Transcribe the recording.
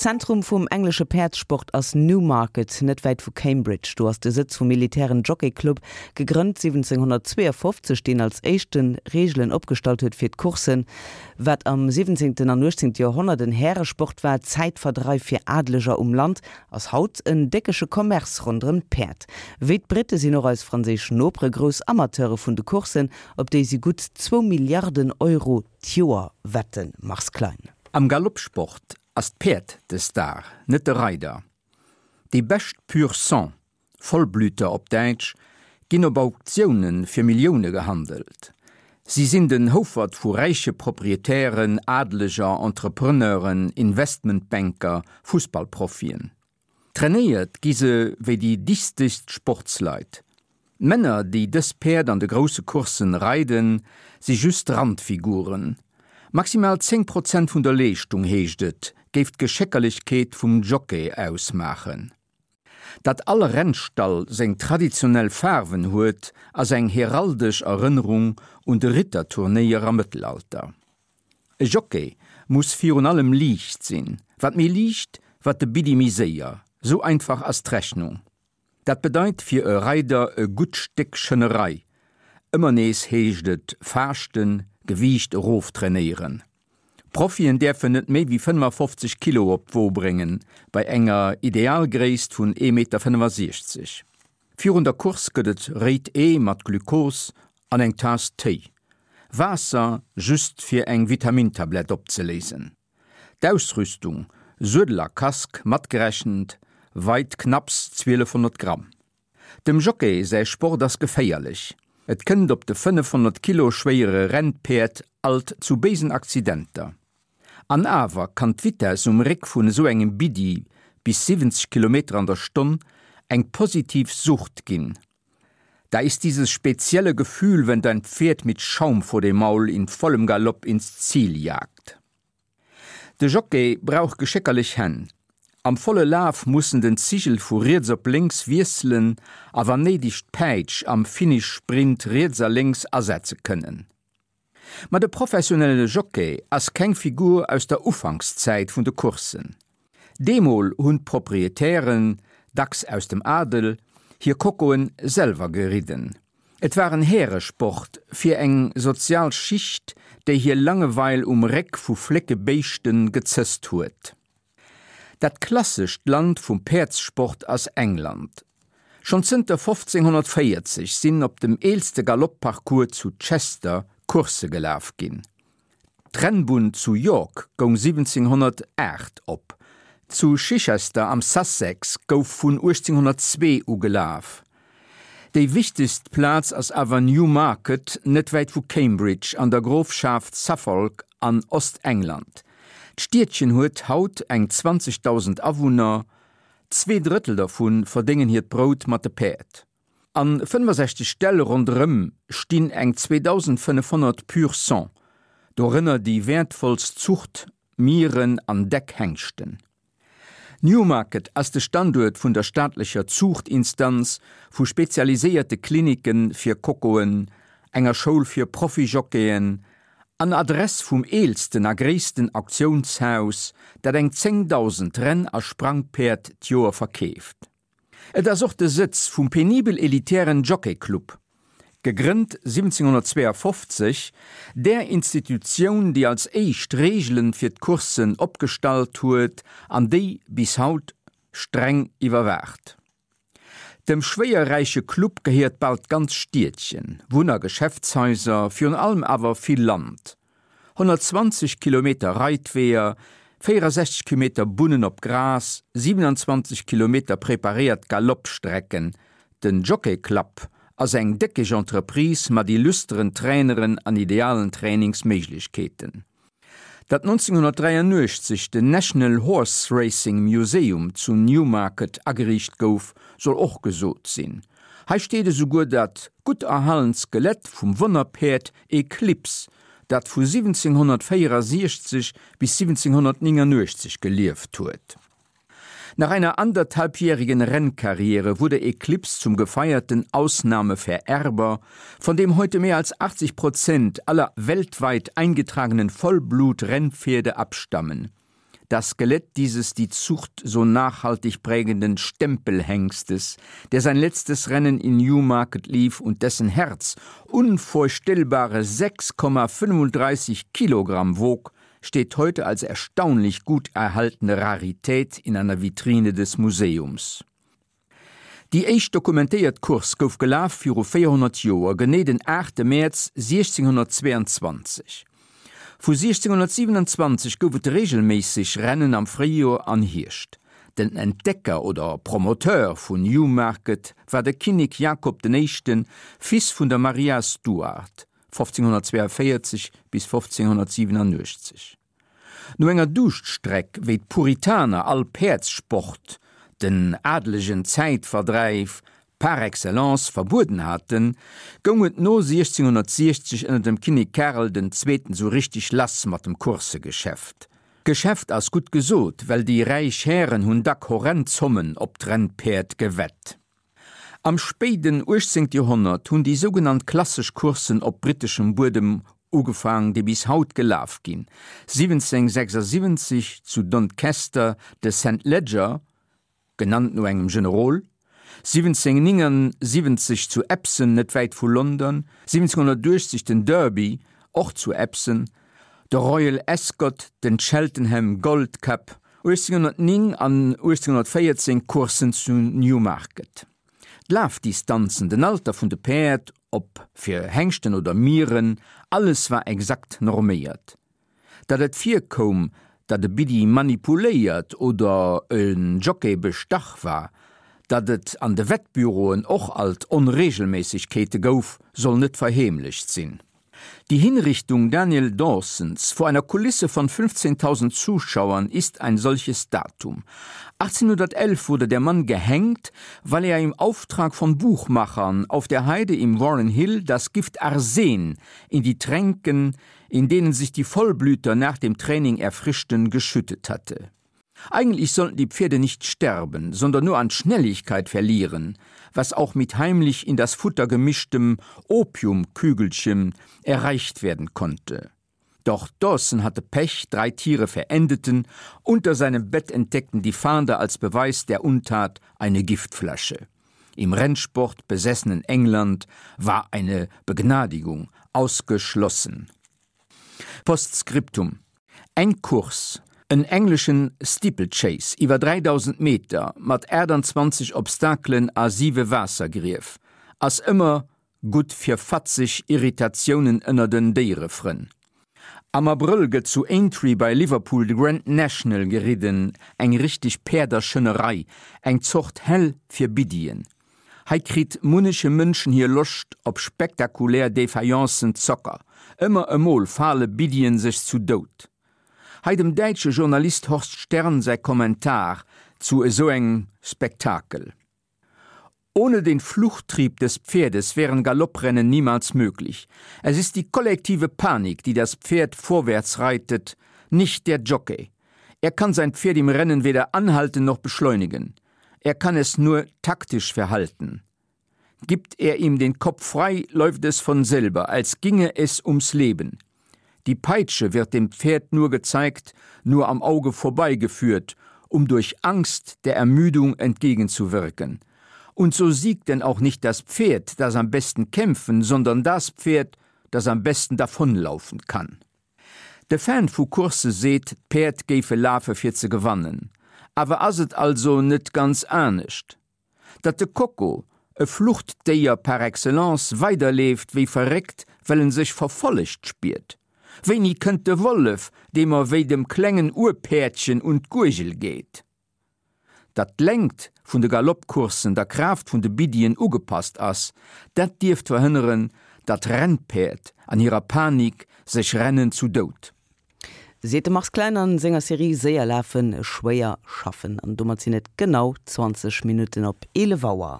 D'Zentrum vum englesche Päerdssport ass Newmarket, net wäit vu Cambridge. Do ass de Sëtz vum militären Jockey Club, gegrënnt 1752, deen als éischte Reegelen opgestallt huet fir d'Courssen. Wat am siwwenzéngten an uechtzéngte Joerhonnert en Häresport war, Zäitverdreif fir Adeleger um Land, ass haut en déckege Commerce ronderëm d'Päerd. Wéi d'Britte sinn och eis franséisch Nopere grouss Amateure vun de Courssen, op déi si gutt zwou Milliarden Euro d'Joer wetten, Mars Klein. Am Galoppsport ass d'Päerd de Star, net de Reider. Déi bescht Pur Sang, Vollblüter op Däitsch, ginn op Auktioune fir Millioune gehandelt. Si sinn den Houfert vu räiche Proprietären, Adeleger, Entrepreneuren, Investmentbanker, Fussballprofien. Trainéiert gi se wéi déi dichtegst Sportsleit. D'Männer, déi dës Päerd an de grousse Courssen reiden, si just Randfiguren. Maximal 10 Prozent vun der Leeschtung, heescht et, géif d'Geschéckerlechkeet vum Jockey ausmaachen. Datt all Rennstall seng traditionell Faarwen huet, ass eng heraldesch Erënnerung un de Ritterturnéier am Mëttelalter. E Jockey muss virun allem liicht sinn. Wat méi liicht, wat de Biddi méi séier. Sou einfach ass d'Rechnung. Dat bedeit fir e Reider e gutt Stéck Schënnerei. Ëmmer nees heescht et faaschten, Gewiicht eroftrainéieren. Profien däerfen net méi wéi 55 Kilo op d'Wo bréngen, bei enger Idealgréisst vun 1,65 Meter. Virun der Course gëtt et réit Ee mat Glukos an eng Taass Téi. Waasser just fir eng Vitamintablett opzeléisen. D'Ausrüstung, Suedel a Casque matgerechent, weit knapps 1200 Gramm. Dem Jockey säi Sport ass geféierlech. Et kënnt op de 500 Kilo schwéiere Rennpäerd alt zu béisen Accidenter. An awer kann d'Vitess um Réck vun esou engem Biddi bis 70 Kilometer an der Stonn eng positiv Sucht ginn. Da ist dieses spezielle Gefühl, wenn dein Pferd mit Schaum vor dem Maul in vollem Galopp ins Ziel jagt. De Jockey brauch geschéckerlech Hänn. Am volle Laf muss en den Zigel vu riets op lénks wiesselen a wann néideg d'Päitsch am Finish-Sprint riets a lénks asetze kënnen. Ma de professionelle Jockey ass keng Figur aus der Ufankszäit vun de Courssen. Deemol hunn d'Proprietären, dacks aus dem Adel, hir Kokoen selwer geridden. Et war en Häeresport fir eng sozial Schicht, déi hir Langeweil um Réck vu flécke Béischte gezësst huet. Dat klassescht Land vum Päerdssport ass England. Schonn zënter 1540 sinn op dem eelste Galoppparcours zu Chester Coursse gelaf ginn. D'Rennbunn zu York goung 1708 op. Zu Chichester am Sussex gouf vun 1802 u gelaf. Déi wichtegst Plaz ass awer Newmarket, net wäit vu Cambridge an der Grofschaft Suffolk an Ostengland. D'Stiedchen huet haut eng 20.000 Awunner, 2 Drëttel dervu verdéngen hiert Brout mat de Päerd. A 65 Ställ ronderëm stinn eng 2.500 Pur sang, dorënner déi wäertvollst Zucht Mieren an deck Hengschten. Newmarket ass de Standuert vun der staatlecher Zuuchtinstanz, vu spezialiséierte Klinicke fir Kokoen, enger Schoul fir Profi-Jockeyen an Adress vum eelsten a gréissten Auktiounshaus, dat eng 10.000 Renn a Sprangpäerd d'Joer verkeeft. Et ass och de Sëtz vum penibel elitären Jockey Club, gegrënnt 1752, där Institutioun, déi als éischt Reegelen fir d'Courssen opgestallt huet an déi bis haut streng iwwerwaacht. Dem schwéierräiche Club gehéiert bal d'ganz Stiedchen, Wunn a Geschäftshaiser, virun allem awer vill Land. 120 Kilometer Reitweeër, 64 Kilometer Bunnen op Gras, 27 Kilometer preparéiert Galoppstrecken, den Jockey Club ass eng déckeg Entreprise mat illusteren Traineren an idealen Trainingsméiglechkeeten. Datt 1983 den National Horse Racing Museum zu Newmarket ageriicht gouf, soll och gesot sinn. Hei steet esouguer dat gutt erhalent Skelett vum Wonnerpäerd Eclipse, dat vu 1764 bis 1789 gelieft huet. Nach einer anderthalbjährigen Rennkarriere wurde Eclipse zum gefeierten Ausnahmevererber, von dem heute mehr als 80 Prozent aller weltweit eingetragenen Vollblutrennpferde abstammen. Das Skelett dieses die Zucht so nachhaltig prägenden Stempelhengstes, der sein letztes Rennen in Newmarket lief und dessen Herz unvorstellbare 6,35 Kilogramm wog, steht heute als erstaunlich gut erhaltene Rarität in einer Vitrine des Museums. Déi éischt dokumentéiert Course gouf gelaf viru 400 Joer, genee den 8 Mäerz 1622. Vu 1627 gouf et reegelméisseg Rennen am Fréijoer an Hierscht. Den Entdecker oder Promoteur vun Newmarket war de Kinnek Jakob den Éischten, Fils vun der Maria Stuart, 1542 bis 1587. No enger Duuschtstreck, wéi d'Puritaner all Päerdssport, den adelegen Zäitverdräif par excellence, verbueden haten, goung et no 1660 ënner dem Kinnek Karel den Zweeten sou richteg lass mat dem Coursegeschäft. Geschäft ass gutt gesot, well déi räich Hären hunn dack horrend Zommen op d'Rennpäerd gewett. Am spéiden 18. Joerhonnert hunn déi sougenannt klassesch Courssen op britteschem Buedem ugefaang, déi bis haut gelaf ginn. 1776 zu Doncaster de St Leger, genannt no engem Generol, 1779 zu Epsom, net wäit vu London, 1780 den Derby, och zu Epsom, de Royal Ascot, den Cheltenham Gold Cup, 1809 an 1814 Courssen zu Newmarket. D'Lafdistanzen, den Alter vun de Päerd, ob fir Hengschten oder Mieren, alles war exakt norméiert. Datt et virkoum, datt e Biddi manipuléiert oder e Jockey bestach war, datt et an de Wettbüroen och alt Onreegelméissegkeete gouf, soll net verheemlecht sinn. Die Hinrichtung Daniel Dawsons vor einer Kulisse von 15.000 Zuschauern ist ein solches Datum. 1811 wurde der Mann gehängt, weil er im Auftrag von Buchmachern auf der Heide im Warren Hill das Gift Arsen in die Tränken, in denen sich die Vollblüter nach dem Training erfrischten, geschüttet hatte. Eigentlich sollten die Pferde nicht sterben, sondern nur an Schnelligkeit verlieren, was auch mit heimlich in das Futter gemischtem Opiumkügelchen erreicht werden konnte. Doch Dawson hatte Pech, drei Tiere verendeten, unter seinem Bett entdeckten die Fahnder als Beweis der Untat eine Giftflasche. Im Rennsport besessenen England war eine Begnadigung ausgeschlossen. Postscriptum Eng Course, en engleschen Steeplechase iwwer 3000 Meter mat 28 Obstakelen a siwe Waassergrief, ass ëmmer gutt fir fatzeg Irritatiounen ënner den Déierefrënn. Am Abrëll gëtt zu Aintree bei Liverpool de Grand National geridden, eng richteg Päerderschënnerei, eng Zort Hell fir Biddien. Hei kritt munneche Mënschen hir Loscht op spektakulär Défaillance'en Zocker. Ëmmer emol fale Biddien sech zu Doud. Hei dem däitsche Journalist Horst Stern säi Kommentar zu esou engem Spektakel. Ohne den Fluchttrieb des Pferdes wären Galopprennen niemals möglich. Es ist die kollektive Panik, die das Pferd vorwärts reitet, nicht der Jockey. Er kann sein Pferd im Rennen weder anhalten noch beschleunigen. Er kann es nur taktisch verhalten. Gibt er ihm den Kopf frei, läuft es von selber, als ginge es ums Leben. Die Peitsche wird dem Pferd nur gezeigt, nur am Auge vorbeigeführt, um durch Angst der Ermüdung entgegenzuwirken. Und so siegt denn auch nicht das Pferd, das am besten kämpfen, sondern das Pferd, das am besten davonlaufen kann. De Fan vu Coursse seet, d'Päerd géife lafe fir ze gewannen. Awer ass et also net ganz anescht? Datt de Coco, e Fluchtdéier par excellence, weiderleeft wéi verréckt, well en sech verfollegt spiert? Wéini kënnt de Wollef, dee mer wéi dem klengen Urpäerdchen un d'Guergel geet? Datt d'Längt vun de Galoppcourssen der Kraaft vun de Biddien ugepasst ass, dat dierft verhënneren, datt Rennpäerd an hirer Panik sech rennen zu Doud. Seet de Mars Klein an senger Serie Séier lafen, schwéier schaffen. An domat sinn et genau 20 Minutten op 11 Auer.